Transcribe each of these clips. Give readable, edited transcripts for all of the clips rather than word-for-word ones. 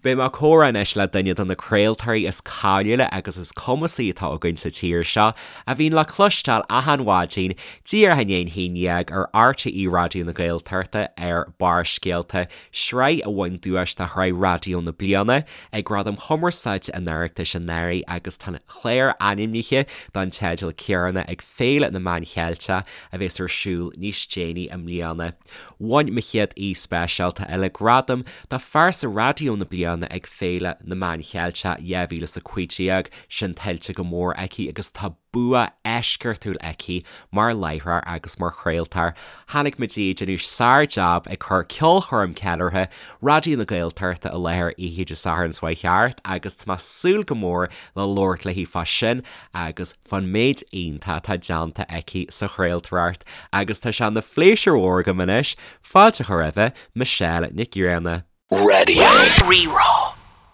Beidh mé ag comhrá anois le duine de na craoltóirí is cáiliúla agus is cumasaí atá againn sa tír seo, a bhíonn le cloisteáil achan mhaidin, díreach i ndiaidh an haon dhéag ar RTÉ Raidió na Gaeltachta ar Barrscéalta, sraith a bhain duais do Shraith Raidió na Bliana ag Gradaim Chumarsáide an Oireachtais anuraidh agus tá an clár ainmnithe don teideal céanna ag Féile na Meán Cheilteach a bheas ar siúl níos déanaí i mbliana. Bhain mo chéad aoi speisialta eile gradam do Phearsa Raidió na Bliana ag Féile na Meán Cheilteach 2015, sin tuillte go mór aici agus tá bua eisceachtúil aici mar láithreoir agus mar chraoltóir. Chonaic muid í ag déanamh sár-jab ag cur ceolchoirm ceiliúrtha Raidió na Gaeltachta i láthair oíche Dé Sathairn seo chuaigh thart agus tá mé ag súil go mór le labhairt léi fá sin agus fán méid iontach atá déanta aici sa chraoltóireacht agus tá sé ina phléisiúr mhór agam anois fáilte a chur roimhe Michelle Nic Grianna. Radio Rí-Rá.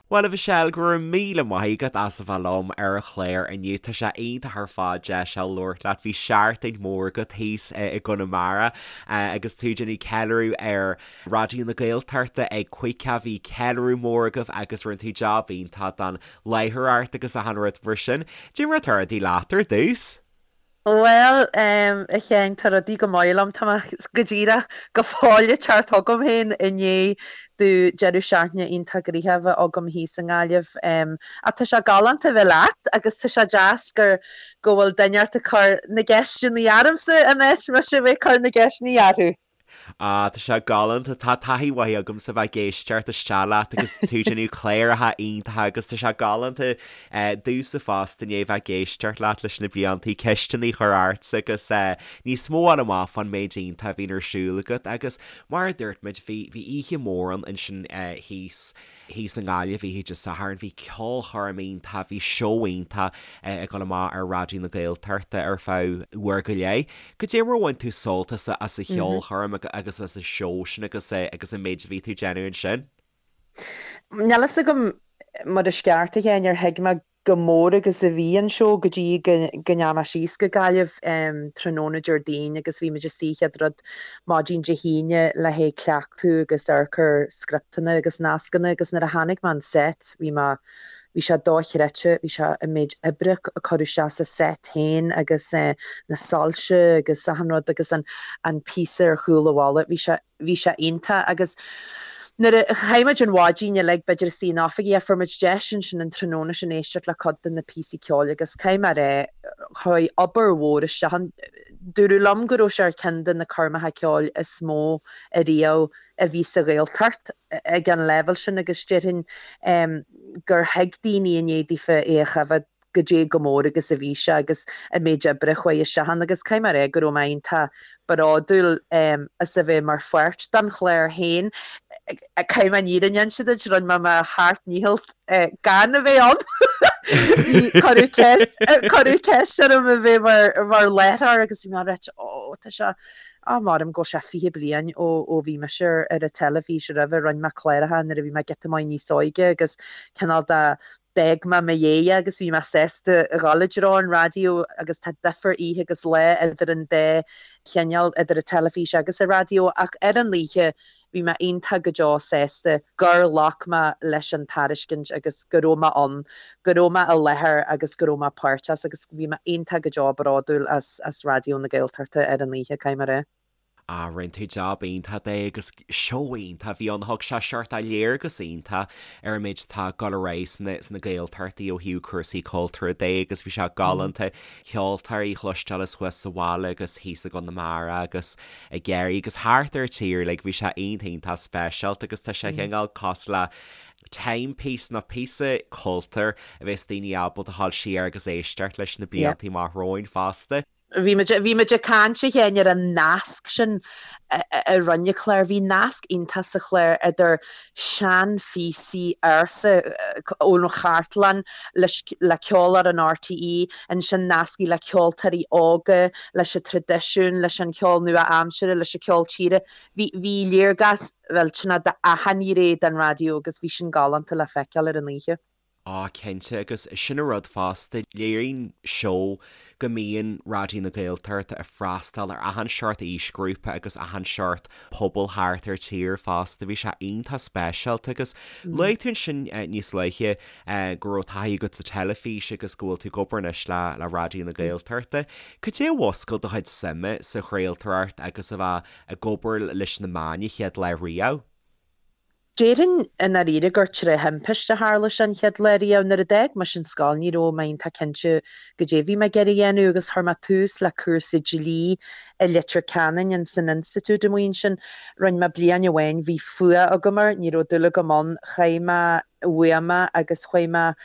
Bhuel a Mhichelle, go raibh míle maith agat as a bheith liom ar an chlár inniu. Tá sé iontach ar fad deis a labhairt leat. Bhí seachtain mhór agat thíos i gConamara agus tú ag déanamh ceiliúradh ar Raidió na Gaeltachta ag 50, bhí ceiliúradh mór agaibh agus rinne tú jab iontach don láithreoireacht agus achan rud mar sin. Cad é mar atá rudaí leat ar dtús? Bhuel, a Sheáin, tá rudaí go maith liom. Tá mé go díreach go fóill ag teacht chugam féin i ndiaidh domh deireadh seachtaine iontach gnoitheach a bheith agam thíos i nGaillimh. Ach tá sé galánta a bheith leat agus tá sé deas gur go bhfuil duine ort ag cur na gceisteanna ormsa in áit mise a bheith ag cur na gceisteanna orthu. Ah, tá sé galánta. Tá taithí mhaith agamsa bheith ag éisteacht isteach leat agus tú ag déanamh cláracha iontacha agus tá sé galánta domhsa fosta i ndiaidh bheith ag éisteacht leat leis na bliantaí, ceisteanna a chur ortsa agus níos mó a fháil amach fán méid iontach a bhíonn ar siúl agat agus mar a dúirt muid bhí bhí oíche mhór ann ansin thíos Thíos i nGaillimh oíche Dé Sathairn bhí ceolchoirm iontach, bhí seó iontach ag dul amach ar Raidió na Gaeltachta ar feadh uair go leith. Cad é mar a bhain tú sult as an cheolchoirm agus as an seó sin agus agus an méid a bhí tú ag déanamh ansin? Níl fhios agam mar is ceart a Sheáin ar thuig mé chomh mór agus a bhí an seó go dtí go ndeachaigh mé síos go Gaillimh tráthnóna Déardaoin agus bhí muid istigh chéad rud maidin Dé hAoine le haghaidh cleachtadh agus amharc ar scripteanna agus nascanna agus nuair a tháinig mé an set bhí mé bhí sé dochreidte bhí sé an méid oibre a cuireadh isteach sa set féin agus na soilse agus achan rud agus an an píosa ar chúl an bhalla bhí sé Bhí sé iontach agus nuair a chaith muid an mhaidin uilig b'fhéidir istigh in oifigí ach fuair muid deis ansin an tráthnóna sin éisteacht le cuid de na píosaí ceoil agus caithfidh mé a rá chuaigh obair mhór isteach ann. Dúradh liom go raibh sé ar cheann de na coirmeacha ceoil is mó ariamh a bhí sa Ghaeltacht ag an leibhéal sin agus déarfainn gur thuig daoine i ndiaidh daofa é a choimhéad goidé chomh mór agus a bhí sé agus an méid oibre a chuaigh isteach ann agus caithfidh mé a rá go raibh mé iontach bródúil as a bheith mar pháirt den chlár féin. Caithfidh mé an fhírinne a inse duit, rinne mé mo sheacht ndícheall gan a bheith ann. Bhí, cuireadh ceist orm a bheith mar láithreoir agus bhí mé right, ó tá sé, á maram go bhfuil sé 20 bliain ó ó bhí mise ar an teilifís roimhe, rinne mé cláracha nuair a bhí mé giota maith níos óige agus cineál de D'fhág mé mo dhéidh agus bhí mé sásta a dhul i dtreo an raidió agus tá difear oíche agus lá idir an dá chineál, idir an teilifís agus an raidió ach ar an oíche bhí mé iontach go deo sásta gur ghlac mé leis an tairiscint agus go raibh mé ann, go raibh mé i láthair agus go raibh mé páirteach agus bhí mé iontach go deo bródúil as as Raidió na Gaeltachta ar an oíche, caithfidh mé a rá. Ah, rinne tú jab iontach de agus seó iontach a bhí ann. Thug sé seort de léargas iontach ar an méid atá ag dul ar aghaidh sna, sna Gaeltachtaí ó thaobh cúrsaí cultúrtha de agus bhí sé galánta ceoltóirí a chloisteáil as thuas sa bhaile agus thíos i gConamara agus i gCiarraí agus thart ar an tír uilig. Bhí sé iontach iontach speisialta agus tá sé cineál cosúil le timepiece nó píosa cultúir a bheas daoine ábalta a dhul siar agus éisteacht leis na blianta amach romhainn fosta. Bhí muid, bhí muid ag caint a Sheáin ar an nasc sin a rinne an clár. Bhí nasc iontach sa chlár idir seanphíosaí ársa ón chartlann leis, le ceol ar an RTÉ, ansin nascaí le ceoltóirí óga, leis an traidisiún, leis an cheol nua-aimseartha, leis an cheol tíre. Bhí, bhí léargas, bhuel, cineál d'achan ghné den raidió agus bhí sin galánta le feiceáil ar an oíche. Á, cinnte, agus sin an rud fosta, léiríonn seó go mbíonn Raidió na Gaeltachta ag freastal ar achan seort aoisghrúpa agus achan seort pobal thart ar tír fosta. Bhí sé iontach speisialta agus luaigh tú ansin níos luaithe go raibh taithí agat sa teilifís agus go bhfuil tú ag obair anois le le Raidió na Gaeltachta. Cad é a mhúscail do chuid suime sa chraoltóireacht agus a bheith ag obair leis na meáin an chéad lá riamh? Déarfainn i ndáiríre gur tré thimpiste a tharla sé an chéad lá riamh. Nuair a d'fhág mise an scoil ní raibh mé iontach cinnte goidé a bhí mé ag iarraidh a dhéanamh agus chuir mé tús le cúrsa dlí i Leitir Ceanainn ins an institiúid amuigh ansin. Rinne mé bliain amháin, bhí fuath agam air, ní raibh dúil agam ann. Chaith mé uaim é agus chuaigh mé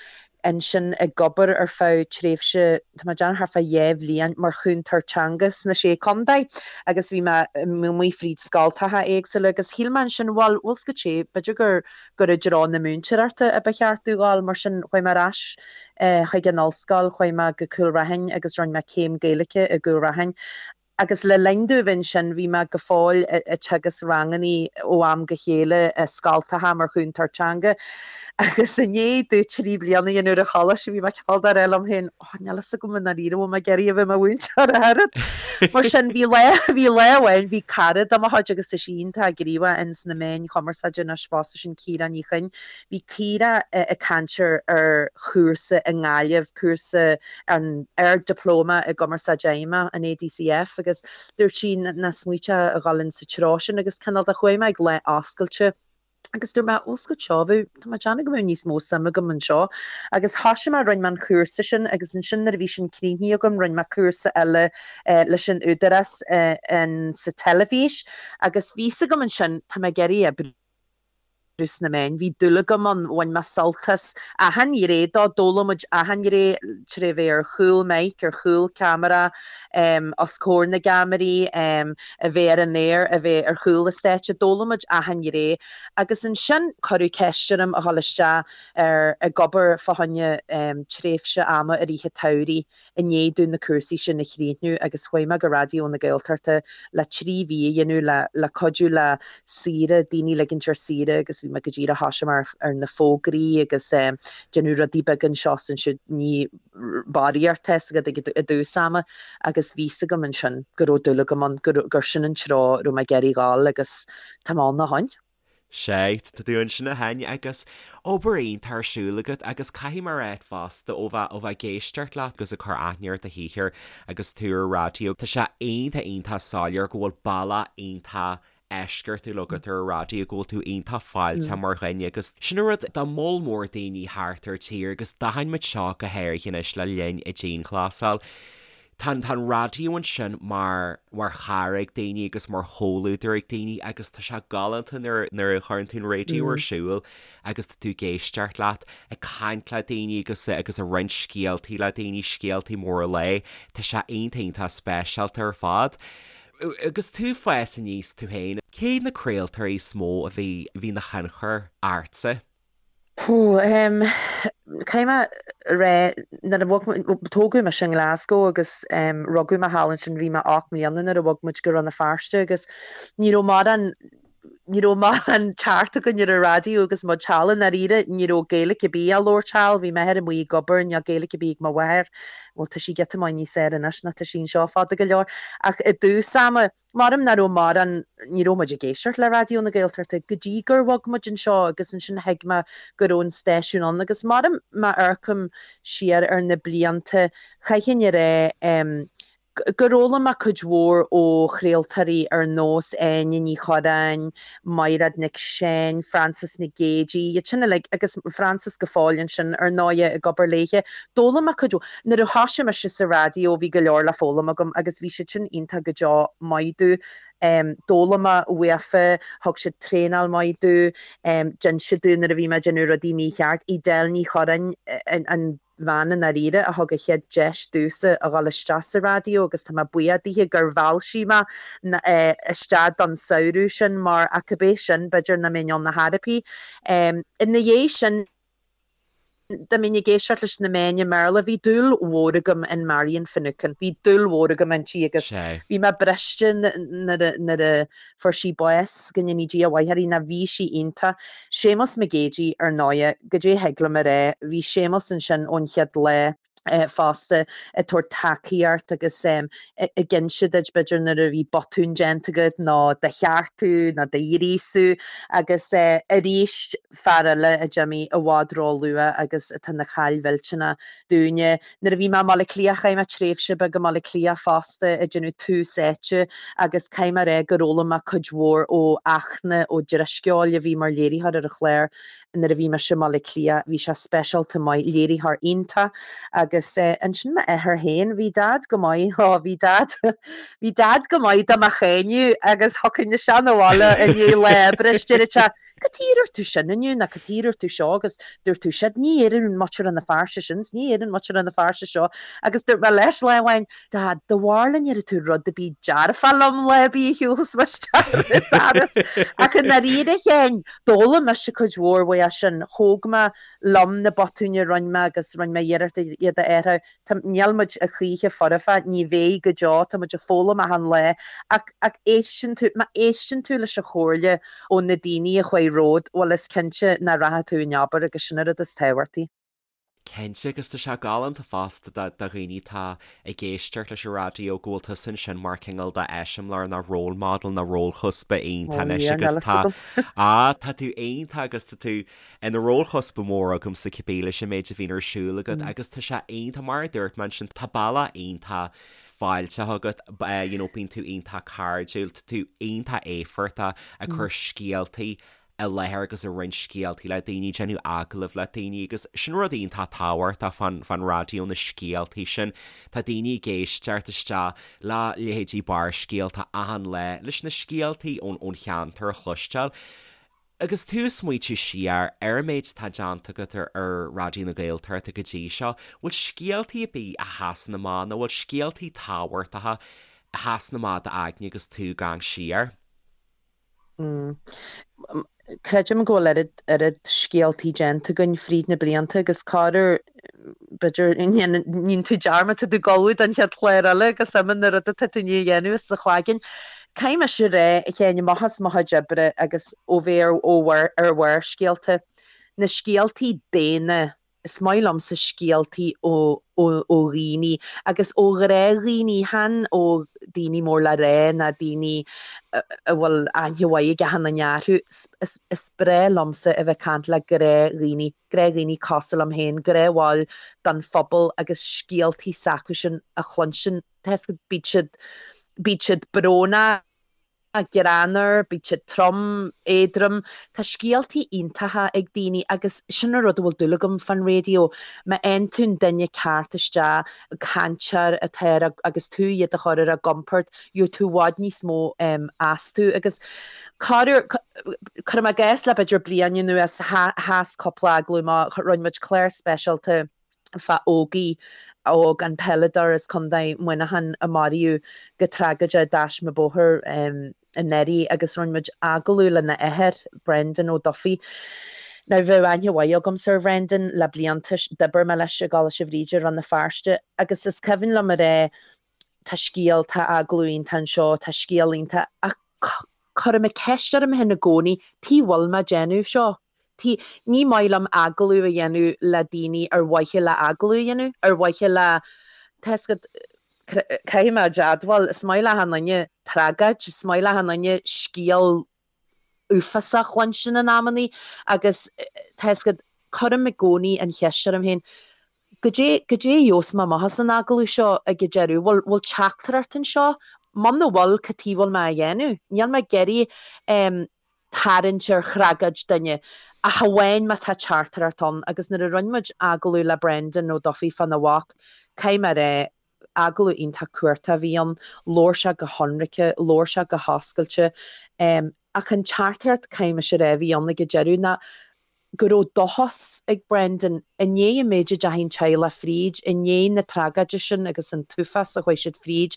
ansin ag obair ar feadh tréimhse, tá mé ag déanamh thart fá dhá bhliain, mar chúntóir teanga sna Sé Contae agus bhí mé amuigh fríd scoltacha éagsúla agus shíl mé ansin, bhuel, bhfuil 's agat sé, b'fhéidir gur gur i dtreo na múinteoireachta a ba cheart domh dhul, mar sin chuaigh mé ar ais chuig an ollscoil, chuaigh mé go Cúil Raithin agus rinne mé céim Gaeilge i gCúil Raithin. Agus le linn domh a bheith ansin, bhí mé go fóill ag teagasc rangannaí ó am go chéile i scoltacha mar chúntóir teanga. Agus i ndiaidh domh 3 bliana a dhéanamh ar an choláiste, bhí mé cineál de ag rá liom féin, oh, níl fhios agam i ndáiríre bhfuil mé ag iarraidh a bheith i mo mhúinteoir ach oiread. Mar sin, bhí lá, bhí lá amháin, bhí cara de mo chuid agus tá sí iontach gníomhach ins na meáin chumarsáide anois fosta, sin Ciara Ní Chuinn. Bhí Ciara ag caint ar ar chúrsa i nGaillimh, cúrsa an Ard-Dioplóma i gCumarsáid Fheidhmeach, an ADCF, agus dúirt sí nach smaointeofá a dhul in sa treo sin agus cineál de chuaigh mé ag lá oscailte agus dúirt mé, bhfuil 's agat seo, bheadh, tá mé ag déanamh go mbeadh níos mó suim agam anseo. Agus thoisigh mé, rinne mé an chúrsa sin agus ansin nuair a bhí sin críochnaithe agam rinne mé cúrsa eile leis an Údarás in sa teilifís agus bhí 's agam ansin, tá mé ag iarraidh oibriú. sna meáin. Bhí dúil agam ann, bhain mé sult as achan ghné dó, d'fhoghlaim muid achan ghné tré bheith ar chúl mic, ar chúl ceamara, os comhair na gceamaraí, a bheith ar an aer, a bheith ar chúl an stáitse, d'fhoghlaim muid achan ghné. Agus ansin cuireadh ceist orm a dhul isteach ar ag obair fá choinne tréimhse ama i rith an tsamhraidh. i ndiaidh domh na cúrsaí sin a chríochnú agus chuaigh mé go Raidió na Gaeltachta le 3 mhí a dhéanamh le le cuidiú le saoire, daoine ligint ar saoire agus bhí mé go díreach thoisigh mé ar na fógraí agus déanamh rudaí beaga anseo is ansiúd, ní barraíocht tá 's agat ag i dtús ama agus bhí 's agam ansin go raibh dúil agam ann, gur gur sin an treo a raibh mé ag iarraidh dhul agus tá mé ann ó shoin. Sea, tá tú ansin ó shin agus obair iontach ar siúl agat agus caithfidh mé a rá fosta ó bheith, ó bheith ag éisteacht leat agus ag cur aithne ar do shaothar agus tú ar raidió, tá sé iontach, iontach soiléir go bhfuil bealach iontach eisceachtúil agat ar an raidió, go bhfuil tú iontach fáilteach mar dhuine agus sin an rud do moll mór daoine thart ar tír agus d'aithin muid seo go háirithe anois le linn an dianghlasáil. Tá an, tá an raidió ansin mar, mar chara ag daoine agus mar chomhluadar ag daoine agus tá sé galánta nuair, nuair a chuireann tú an raidió ar siúl agus tá tú ag éisteacht leat, ag caint le daoine agus, agus ag roinnt scéaltaí le daoine, scéaltaí móra lae. Tá sé iontach, iontach speisialta ar fad. Agus tú ag fás aníos tú féin, cé na craoltóirí is mó a bhí, a bhí ina thionchar ortsa? Caithfidh mé a rá, nuair a bhog muid, tógadh mise i nGlasgow agus rugadh mé thall ansin, bhí mé 8 mbliana nuair a bhog muid go Rann na Feirste agus ní raibh mórán, ní raibh mórán teacht againn ar an raidió agus muid thall i ndáiríre, ní raibh Gaeilge ar bith á labhairt thall, bhí m'athair amuigh ag obair, níl Gaeilge ar bith ag mo mháthair, bhuel tá sí giota maith níos fearr anois ná tá sí anseo fada go leor, ach i dtús ama, Maram nach raibh mórán, ní raibh muid ag éisteacht le Raidió na Gaeltachta go dtí gur bhog muid anseo agus ansin thuig mé go raibh an stáisiún ann agus maram má amharcaim siar ar na blianta, chaithfinn a rá gur fhoghlaim mé cuid mhór ó chraoltóirí ar nós Áine Ní Churráin, Maighread Nic Seáin, Frances Nic Géidigh, iad sin uilig agus Frances go fóill ansin ar ndóighe ag obair léithe. D'fhoghlaim mé cuid mhór. Nuair a thoisigh mise sa raidió bhí go leor le foghlaim agam agus bhí siad sin iontach go deo maith domh. D'fhoghlaim mé uafa, thug siad traenáil maith domh, d'inis siad domh nuair a bhí mé ag déanamh rudaí mícheart. Edel Ní Churráin an bhean i ndáiríre a thug an chéad deis domhsa a dhul isteach sa raidió agus tá mé buíoch dithe gur mheall sí mé isteach don samhradh sin mar ach cibé sin b'fhéidir nach mbeinn ann ar chor ar bith. Ina dhiaidh sin. Dá mbeinn ag éisteacht leis na meáin i mBéarla, bhí dúil mhór agam in Marian Finucane, bhí dúil mhór agam inti agus bhí mé briste nuair a fuair sí bás, go ndéanaí Dia a mhaith uirthi, nó bhí sí iontach. Séamus Mac Géidigh, ar ndóighe, goidé thig liom a rá, bhí Séamus ansin ón chéad lá. fosta ag tabhairt tacaíocht agus ag inse duit b'fhéidir nuair a bhí botún déanta agat nó do cheartú nó do ghríosú agus arís fear eile a d'imigh i bhfad ró-luath agus atá ina chaill mhillteanach dúinne. Nuair a bhí mé i mBaile Átha Cliath chaith mé tréimhse beag i mBaile Átha Cliath fosta ag déanamh tús áite agus caithfidh mé a rá gur fhoghlaim mé cuid mhór ó Fhachtna Ó Drisceoil a bhí mar léiritheoir ar an chlár Nuair a bhí mise i mBaile Átha Cliath bhí sé speisialta maith, léiritheoir iontach agus ansin m'athair féin, bhí Dad go maith, ó bhí Dad, bhí Dad go maith do mo cháineadh agus thiocfainn isteach 'na bhaile i ndiaidh lá oibre is deireadh sé, cad chuige a ndúirt tú sin inniu nó cad chuige a ndúirt tú seo agus dúirt tú siad, ní deireann muintir na Feirste sin 's ní deireann muintir na Feirste seo agus dúirt mé leis lá amháin, Dad, do bharr le ndéarfaidh tú rud ar bith dearfach liom lá ar bith a shiúlfas mé isteach ar an doras ach i ndáiríre féin, D'fhoghlaim mise cuid mhór uaidh sin. Thóg mé liom na botúin a rinne mé agus rinne mé iarracht iad a athrú. Tá, níl muid a choíche foirfe, ní bheidh go deo, tá muid ag foghlaim achan lá. Ach, ach éisteann tú, má éisteann tú leis an chomhairle ó na daoine a chuaigh romhat, bhuel is cinnte nach rachaidh tú in abar agus sin an rud is tábhachtaí. Cinnte, agus tá sé galánta fosta do dhaoine atá ag éisteacht leis an raidió go bhfuil tusa ansin mar cineál de eiseamláir nó role model nó rólchuspa iontach anois agus tá, á, tá tú iontach agus tá tú ina rólchuspa mór agamsa cibé leis an méid a bhíonn ar siúl agat agus tá sé iontach, mar a dúirt mé ansin, tá bealach iontach fáilteach agat, you know, bíonn tú iontach cairdiúil, tá tú iontach éifeachtach ag cur scéaltaí i láthair agus ag roinnt scéaltaí le daoine, déanamh agallamh le daoine agus sin rud iontach tábhachtach fán, fán raidió, na scéaltaí sin. Tá daoine ag éisteacht isteach le leithéidí Barrscéalta achan lá leis na scéaltaí ón, ón cheantar a chloisteáil. Agus tú ag smaoitiú siar ar an méid atá déanta agat ar, ar Raidió na Gaeltachta go dtí seo, bhfuil scéaltaí ar bith a sheasann amach nó bhfuil scéaltaí tábhachtacha a sheasann amach i d'aigne agus tú ag amharc siar? Creidim go bhfuil oiread, oiread scéaltaí déanta againn fríd na blianta agus corruair, b'fhéidir, níonn tú dearmad, tá tú ag ullmhú don chéad chlár eile agus imíonn na rudaí atá tú i ndiaidh a dhéanamh as do chloigeann. Caithfidh mise a rá, a Sheáin, amach as mo chuid oibre agus ó bheith ar, ó, ar Bharrscéalta, na scéaltaí daonna, Is maith liomsa scéaltaí ó ó dhaoine agus ó ghnáthdhaoine, chan ó daoine mór le rá ná daoine a bhfuil aithne mhaith ag achan duine orthu. Is is breá liomsa a bheith ag caint le gnáthdhaoine, gnáthdhaoine cosúil liom féin, gnáthbhaill den phobal agus scéaltaí s'acusan a chluinstin. Tá 'fhios agat, bíd siad bíd siad brónach. greannmhar, bíonn siad trom, éadrom. Tá scéaltaí iontacha ag daoine agus sin an rud a bhfuil dúil agam fán raidió. Má fhaigheann tú an duine ceart isteach, cainteoir atá ar a, agus tú iad a chur ar a gcompord, gheobhaidh tú i bhfad níos mó astu. Agus corruair, cuirim i gcás le b'fhéidir bliain anuas, sheas cúpla agallamh amach, rinne muid clár speisialta, fá Ógie óg, an peileadóir as Contae Mhuineacháin a maraíodh go tragóideach i dtaisme bóthair anuraidh agus rinne muid agallamh lena athair, Brendan Ó Dufaigh. Now bheadh aithne mhaith agamsa ar Bhrendan le blianta, d'oibir mé leis i gColáiste Bhríde i Rann na Feirste agus is cuimhin liom a rá tá scéal, tá agallamh iontach anseo, tá scéal iontach ach cuirim an ceist orm féin i gcónaí, tuige a bhfuil mé ag déanamh seo? T, Ní maith liom agallamh a dhéanamh le daoine ar mhaithe le agallamh a dhéanamh, ar mhaithe le, tá 'fhios agat, caithfidh mé a admháil, is maith le achan duine tragóid, is maith le achan duine scéal uafásach a chluinstin in amannaí agus tá 'fhios agat, cuirim i gcónaí an cheist orm féin, goidé, goidé a gheobhas mé amach as an agallamh seo ag an deireadh, bhfuil, bhfuil teachtaireacht anseo? Muna bhfuil, cad chuige a bhfuil mé á dhéanamh? Níl mé ag iarraidh tarraingt ar thragóid duine, ach amháin má tá teachtaireacht ann agus nuair a rinne muid agallamh le Brendan Ó Dufaigh fána mhac, caithfidh mé a rá, agallamh iontach cumhachtach a bhí ann, labhair sé go hionraice, labhair sé go hoscailte, ach an teachtaireacht, caithfidh mise a rá, a bhí ann ag an deireadh ná go raibh dóchas ag Brendan, i ndiaidh an méid a deachaigh an teaghlach fríd, i ndiaidh na tragóide sin agus an t-uafás a chuaigh siad fríd,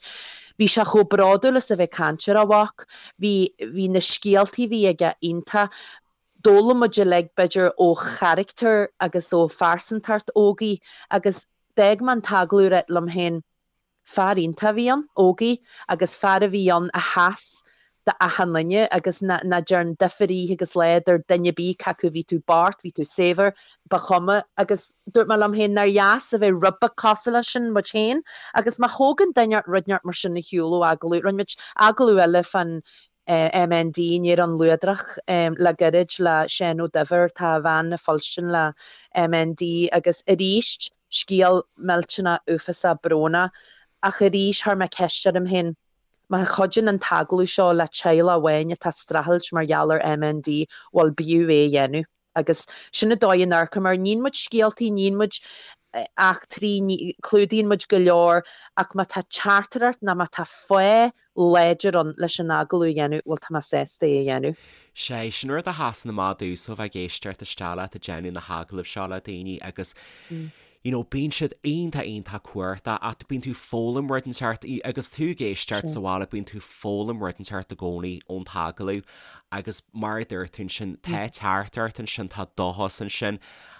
bhí sé chomh bródúil as a bheith ag caint ar a mhac, bhí, bhí na scéaltaí a bhí aige iontach. D'fhoghlaim muid uilig, b'fhéidir, ó charachtar agus ó phearsantacht Ógie agus d'fhág mé an t-agallamh ag rá liom féin, fear iontach a bhí ann, Ógie, agus fear a bhí ann a sheas do achan duine agus nach dtearn difear oíche agus lá idir duine ar bith cé acu bhí tú bocht, bhí tú saibhir, ba chuma. Agus dúirt mé liom féin nár dheas a bheith rud beag cosúil leis sin muid féin agus má thógann duine rud inteacht mar sin ar shiúl ó agallamh, rinne muid agallamh eile fán MND, Néarán Luadrach, le gairid le Seán Ó Duibhir, tá a bhean ag fuilstin le MND agus arís scéal millteanach uafásach brónach ach arís chuir mé ceist orm féin, má chuidíonn an t-agallamh seo le teaghlach amháin atá ag streachailt mar gheall ar MND, bhuel b'fhiú é a dhéanamh. Agus sin an dóigh a n-amharcaim air. Níonn muid scéaltaí, níonn muid eachtraí, clúdaíonn muid go leor ach má tá teachtaireacht nó má tá fáth láidir ann leis an agallamh a dhéanamh, bhuel tá mé sásta é a dhéanamh. Sé, sin rud a sheasann amach domhsa ó bheith ag éisteacht isteach leat ag déanamh na hagallaimh seo le daoine agus you know bíonn siad iontach iontach cumhachtach ach bíonn tú ag foghlaim rud inteacht agus tú ag éisteacht sa bhaile bíonn tú ag foghlaim rud inteacht i gcónaí ón t-agallamh agus mar a dúirt tú ansin tá teachtaireacht ansin tá dóchas ansin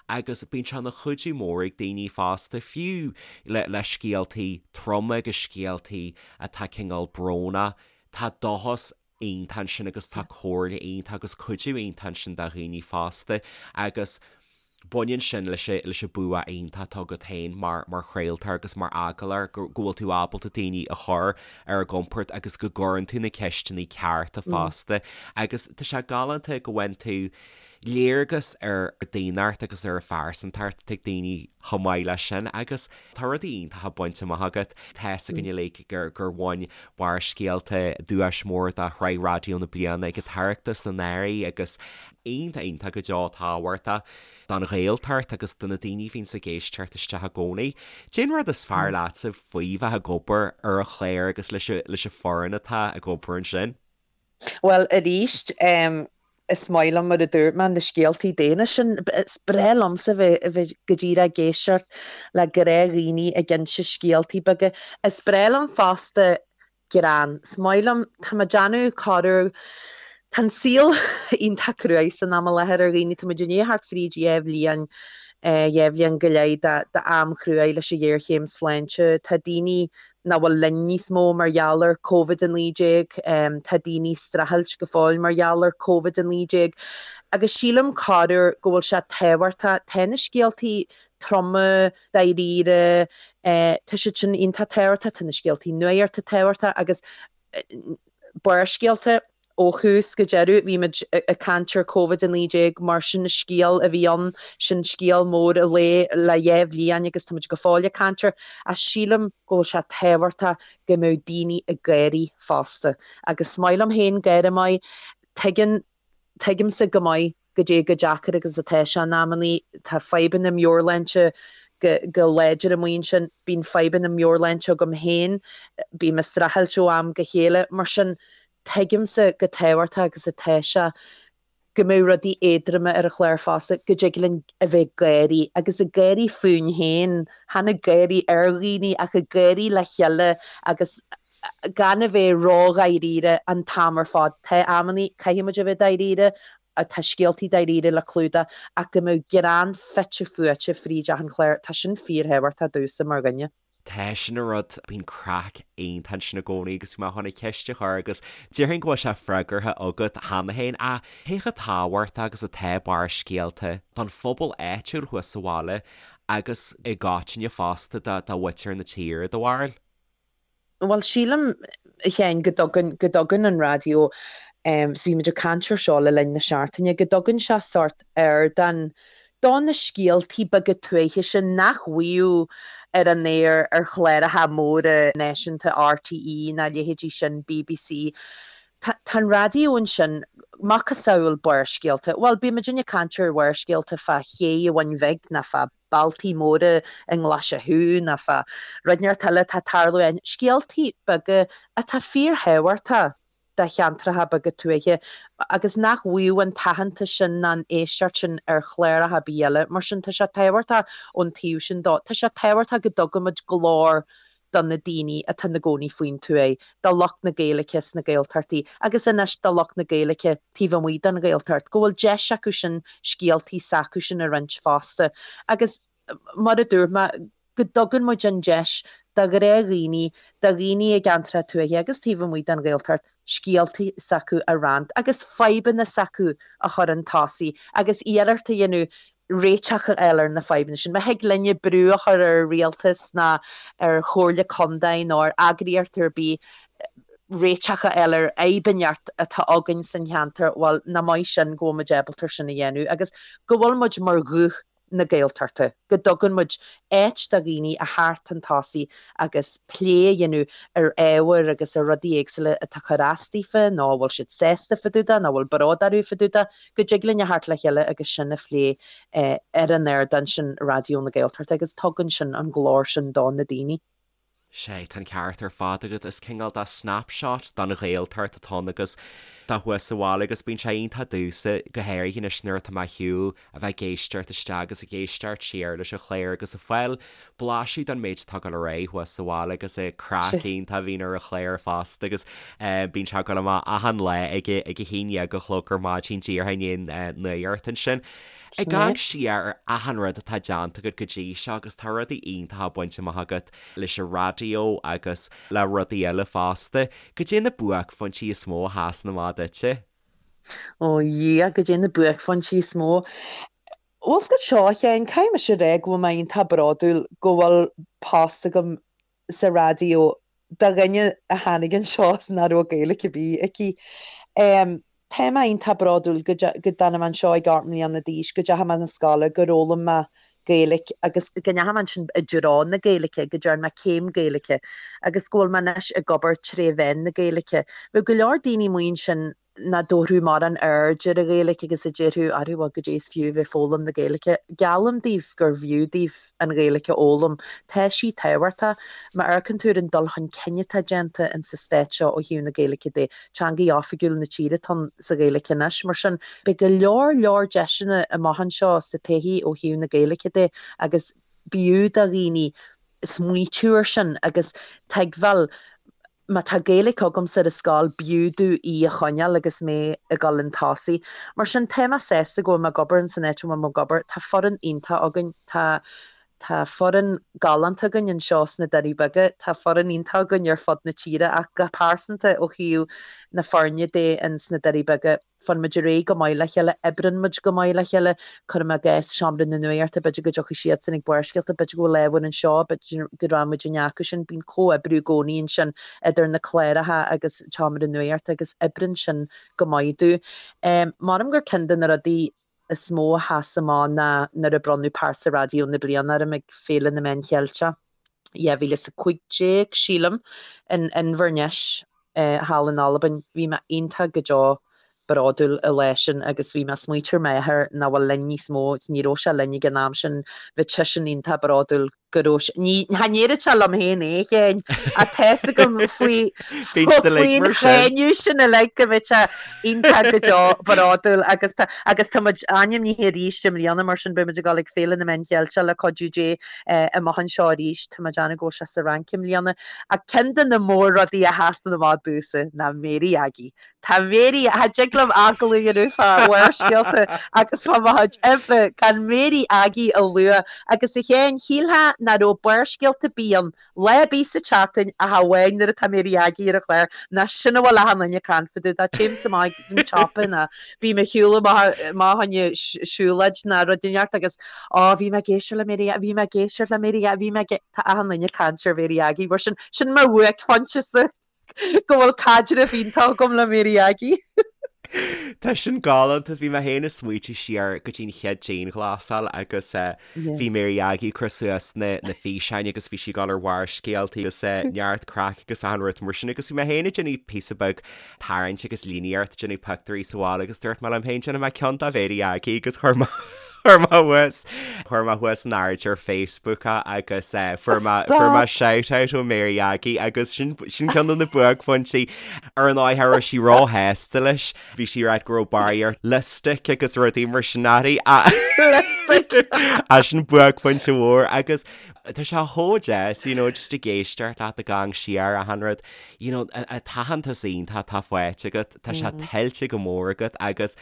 agus bíonn sé ina chuidiú mór ag daoine fosta fiú le le scéaltaí troma agus scéaltaí atá cineál brónach tá dóchas iontach ansin agus tá comhairle iontach agus cuidiú iontach ansin do dhaoine fosta agus baineann sin leis an leis an bua iontach atá agat féin mar mar chraoltóir agus mar agallóir go go bhfuil tú ábalta daoine a chur ar a gcompord agus go gcuireann tú na ceisteanna cearta fosta agus tá sé galánta go bhfaigheann tú léargas ar daonnacht agus ar phearsantacht atá ag daoine chomh maith leis sin agus tá rudaí iontacha bainte amach agat. Tá's againn uilig gur gur bhain Barrscéalta duais mór do Shraith Raidió na Bliana ag an tOireachtas anuraidh agus iontach iontach go deo tábhachtach don Ghaeltacht agus do na daoine a bhíonns ag éisteacht isteach i gcónaí. Cén rud is fearr leatsa faoi bheith ag obair ar an chlár agus leis leis an foireann atá ag obair ansin? Bhuel, arís, is maith liom, mar a dúirt mé, na scéaltaí daonna sin. Is breá liomsa bheith, a bheith go díreach ag éisteacht le gnáthdhaoine ag inse scéaltaí beaga. Is breá liom fosta greann. Is maith liom, tá mé ag déanamh corruair, tá an saol iontach cruaidh san am i láthair ar dhaoine, tá muid i ndiaidh theacht fríd dhá bhliain, dhá bhliain go leith d'am chruaidh leis an ghéarchéim sláinte. Tá daoine nach bhfuil linn níos mó mar gheall ar Covid-19, tá daoine ag streachailt go fóill mar gheall ar Covid-19 agus sílim corruair go bhfuil sé tábhachtach, tá na scéaltaí troma, dáiríre, tá siad sin iontach tábhachtach, tá na scéaltaí nuachta tábhachtach agus Barrscéalta, ó thús go deireadh, bhí muid ag caint ar Covid-19 mar sin scéal a bhí ann, sin scéal mór an lae le dhá bhliain agus tá muid go fóill ag caint air ach sílim go bhfuil sé tábhachtach go mbeadh daoine ag gáirí fosta agus is maith liom féin gáire maith, tuigeann Tuigimse go maith goidé chomh deacair agus atá sé in amannaí. Tá fadhbanna meabhairshláinte go láidir amuigh ansin. Bíonn fadhbanna meabhairshláinte agam féin. Bím ag streachailt ó am go chéile. Mar sin, tuigimse chomh tábhachtach agus atá sé go mbeadh rudaí éadroma ar an chlár fosta, go dtig linn a bheith ag gáirí, agus ag gáirí fúinn féin, chan ag gáirí ar dhaoine ach ag gáirí le chéile agus gan a bheith ródháiríre an t-am ar fad. Tá amannaí, caithfidh muid a bheith dáiríre, tá scéaltaí dáiríre le clúdach, ach go mbeadh greann fite fuaite fríd achan chlár, tá sin fíorthábhachtach domhsa mar dhuine. Tá sin an rud, bíonn craic iontach ansin i gcónaí agus bhí mé chun an cheist a chur agus déarfainn go bhfuil sé freagartha agat cheana féin ach cé chomh tábhachtach agus atá Barrscéalta don phobal áitiúil thuas sa bhaile agus i gcoitinne fosta do mhuintir na tíre, do bharúil? Bhuel, sílim, a Sheáin, go dtugann, go dtugann an raidió, so bhí muid ag caint ar seo le linn na seachtaine, go dtugann sé sórt ardán do na scéaltaí beaga tuaithe sin nach bhfaigheadh ar an aer ar chláracha móra náisiúnta RTÉ ná a leithéidí sin, BBC. Tá, tá an raidió ansin, macasamhail Barrscéalta, bhuel, bíonn muidinne ag caint ar Bharrscéalta fá ché an Bhun Bhig ná fá bealtaí móra i nGlaise Chú ná fá rud inteacht eile atá ag tarlú ann, scéaltaí beaga atá fíorthábhachtach do cheantracha beaga tuaithe agus nach bhfaigheadh an t-aitheantas sin ná an éisteacht sin ar chláracha ar bith eile. Mar sin, tá sé tábhachtach ón taobh sin dó. Tá sé tábhachtach go dtugaimid glór. do na daoine atá ina gcónaí faoin tuaith, do lucht na Gaeilge sna Gaeltachtaí agus anois do lucht na Gaeilge taobh amuigh den Ghaeltacht, go bhfuil deis acu sin scéaltaí s'acusan a roinnt fosta. Agus mar a dúirt mé, go dtugann muid an deis do ghnáthdhaoine, do dhaoine i gceantracha tuaithe agus taobh amuigh den Ghaeltacht, scéaltaí s'acu a roinnt agus fadhbanna s'acu a chur chun tosaigh agus iarracht a dhéanamh réiteach a fháil ar na fadhbanna sin. Má thig linne brú a chur ar an rialtas ná ar chomhairle contae nó ar eagraíocht ar bith réiteach a fháil ar fhadhb inteacht atá againn san cheantar, bhuel, nach maith sin go bhfuil muid ábalta sin a dhéanamh agus go bhfuil muid mar ghuth na Gaeltachta, go dtugann muid áit do dhaoine a theacht chun tosaigh agus plé a dhéanamh ar ábhair agus ar rudaí éagsúla atá ag cur as daofa nó a bhfuil siad sásta fá dtaobh de nó a bhfuil bród orthu fá dtaobh de, go dtig linn a theacht le chéile agus sin a phlé ar an ardán sin Raidió na Gaeltachta agus tugann sin an glór sin do na daoine. Sea, tá an ceart ar fad agat. Is cineál de snapshot don Ghaeltacht atá ann agus tá thuas sa bhaile agus bíonn sé iontach domhsa, go háirithe anois nuair atá mé ar shiúl, a bheith ag éisteacht isteach agus ag éisteacht siar leis an chlár agus ag fáil blaiseadh den méid atá ag dul ar aghaidh thuas sa bhaile agus an craic iontach a bhíonn ar an chlár fosta agus bíonn sé ag dul amach achan lá ag a 11 a chlog ar maidin díreach i ndiaidh an nuacht ansin. Ag amharc siar ar achan rud atá déanta agat go dtí seo agus tá rudaí iontacha bainte amach agat leis an raidió agus le rudaí eile fosta. Goidé na buaicphointí is mó a sheasann amach duitse? Ó Dhia, goidé na buaicphointí is mó. Bhfuil 's agat seo, a Sheáin, caithfidh mise a rá go bhfuil mé iontach bródúil go bhfuil post agam sa raidió do dhuine a tháinig anseo is nach raibh Gaeilge ar bith aici. Tá mé iontach bródúil go dtáinig mé anseo ag 8 mbliana d'aois, go dteachaigh mé na scoile, gur fhoghlaim mé Gaeilge agus go ndeachaigh mé ansin i dtreo na Gaeilge, go dtearn mé céim Gaeilge agus go bhfuil mé anois ag obair tré mheán na Gaeilge. Bheadh go leor daoine amuigh ansin nach dtabharfadh mórán aird ar an Ghaeilge agus a déarfadh, arú bhuel goidé is fiú a bheith ag foghlaim na Gaeilge. Geallaim daoibh gur bhfiú daoibh an Ghaeilge a fhoghlaim. Tá sí tábhachtach. Má amharcann tú ar an dul chun cinn atá déanta in sa stát seo ó thaobh na Gaeilge de, teangaidh oifigiúil na tíre atá ann sa Ghaeilge anois. Mar sin, beidh go leor leor deiseanna amach anseo sa todhchaí ó thaobh na Gaeilge de agus b'fhiú do dhaoine smaoitiú ar sin agus tuigbheáil Má tá Gaeilge agamsa ar an scoil, b'fhiú domh í a choinneáil agus mé ag dul chun tosaigh. Mar sin, tá mé sásta go bhfuil mé ag obair ins an áit a bhfuil mé ag obair. Tá foireann iontach againn. Tá tá foireann galánta againn anseo sna Doirí Beaga. Tá foireann iontach againn ar fud na tíre ach go pearsanta ó thaobh na foirne de ins na Doirí Beaga, Faigheann muid ar aghaidh go maith le chéile, oibreann muid go maith le chéile, cuirim i gcás Seomra na Nuachta, b'fhéidir go dtiocfaidh siadsan ag Barrscéalta, b'fhéidir go bhfuil ábhar anseo, b'fhéidir go rachaidh muid i acu sin, bíonn comhoibriú i gcónaí ansin idir na cláracha agus Seomra na Nuachta agus oibreann sin go maith dúinn. Measaim gur ceann de na rudaí is mó a sheas amach ná nuair a bronnadh Pearsa Raidió na Bliana orm ag Féile na Meán Cheilteach. 2015, sílim, in Inbhir Nis thall in Albain. Bhí mé iontach go deo bródúil an lá sin agus bhí mé ag smaoitiú ar m'athair nach bhfuil linn níos mó, ní raibh sé linn ag an am sin, bhí seisean iontach bródúil go raibh sé, ní, cha ndéarfadh sé liom féin é, a Sheáin, ach tá's agam faoi, faoin cháineadh sin uilig go mbeadh sé iontach go deo bródúil agus tá, agus tá muid ainmnithe arís i mbliana mar sin beidh muid ag dul ag Féile na Meán Cheilteach le cuidiú Dé. amach anseo arís. Tá mé ag déanamh go bhfuil sé sa Fhrainc i mbliana. Ach ceann de na mór-rudaí a sheasann amach domhsa ná Mary Aggie. Tá Mary, cha dtig liom agallamh a dhéanamh fá Bharrscéalta agus fá mo chuid oibre gan Mary Aggie a lua. Agus a Sheáin, shílfeá nach raibh Barrscéalta ar bith ann Lá ar bith sa tseachtain ach amháin nuair atá Mary Aggie ar an chlár, ná sin a bhfuil achan duine ag caint fá dtaobh de. Téimse amach ag an tsiopa ná bím ag siúl amach fá choinne siúlóid ná rud inteacht agus Á, bhí mé ag éisteacht le Mary, bhí mé ag éisteacht le Mary, bhí mé ag, tá achan duine ag caint ar Mary Aggie mar sin, sin mo bhuaicphointe-sa go bhfuil caidreamh iontach agam le Mary Aggie. Tá sin galánta, bhí mé féin ag smaoitiú siar go dtí'n chéad dianghlasáil agus bhí Mary Aggie ag cur suas na na físeáin agus bhí sí ag dul ar Bharrscéalta agus neart craic agus achan rud mar sin agus bhí mé féin ag déanamh píosa beag tarraingt agus líníocht ag déanamh pictiúirí sa bhaile agus dúirt mé liom féin déanfaidh mé ceann de Mhary Aggie agus chuir mé chuir mé thuas chuir mé thuas in airde ar Facebook é agus fuair mé fuair mé shout out ó Mary Aggie agus sin sin ceann de na buaicphointí ar an áith raibh sí róshásta leis. Bhí sí ag rá go raibh barraíocht lipstick agus rudaí mar sin uirthi. Lipstick! Gaeilge. Sin buaicphointe mhór agus tá sé chomh deas, you know, just ag éisteacht leat ag amharc siar achan rud, you know, an t-aitheantas iontach atá faighte agat, tá sé tuillte go mór agat agus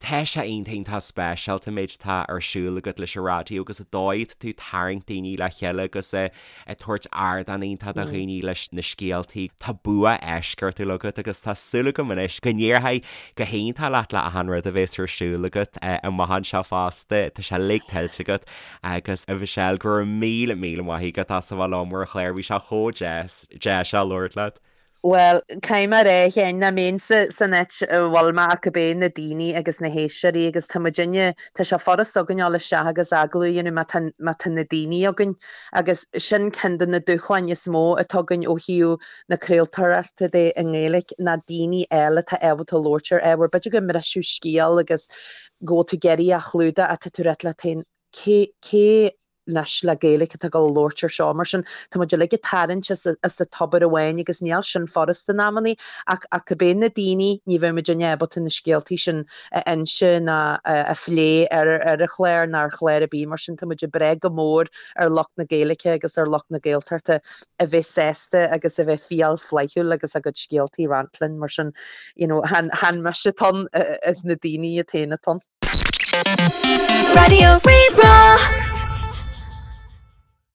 Tá sé iontach iontach speisialta an méid atá ar siúl agat leis an raidió agus an dóigh atá tú ag tarraingt daoine le chéile agus ag tabhairt ardán iontach do dhaoine leis na scéaltaí. Tá bua eisceachtúil agat agus tá súil agam anois go n-éireoidh go hiontach leat le achan rud a bhéas ar siúl agat amach anseo fosta. Tá sé uilig tuillte agat agus a Mhichelle go raibh míle míle maith agat as a bheith liom ar an chlár. Bhí sé chomh deas deas a labhairt leat. Bhuel, caithfidh mé a rá, a Sheáin, nach mbeinnse san áit a bhfuil mé ach gurb é na daoine agus na héisteoirí agus tá muidinne, tá sé furast againn dul isteach agus agallamh a dhéanamh má tá, má tá na daoine againn agus sin ceann de na dúshláin is mó atá againn ó thaobh na craoltóireachta de i nGaeilge ná daoine eile atá ábalta labhairt ar ábhar. B'fhéidir go mbriseadh scéal agus go bhfuil tú ag iarraidh a chlúdach ach tá tú ag rá leat féin, cé, cé anois le Gaeilge atá ag dul a labhairt ar seo. Mar sin, tá muid uilig ag tarraingt as as an tobar amháin agus níl sin furast in amannaí ach ach gurb é na daoine, ní bheadh muidinne ábalta na scéaltaí sin a inse ná a phlé ar ar an chlár ná ar chlár ar bith. Mar sin, tá muid ag brath go mór ar lucht na Gaeilge agus ar lucht na Gaeltachta a bheith sásta agus a bheith fial flaithiúil agus a gcuid scéaltaí a roinnt linn. Mar sin, you know, chan chan mise atá ann, is na daoine iad féin atá ann. Raidió Rí-Rá.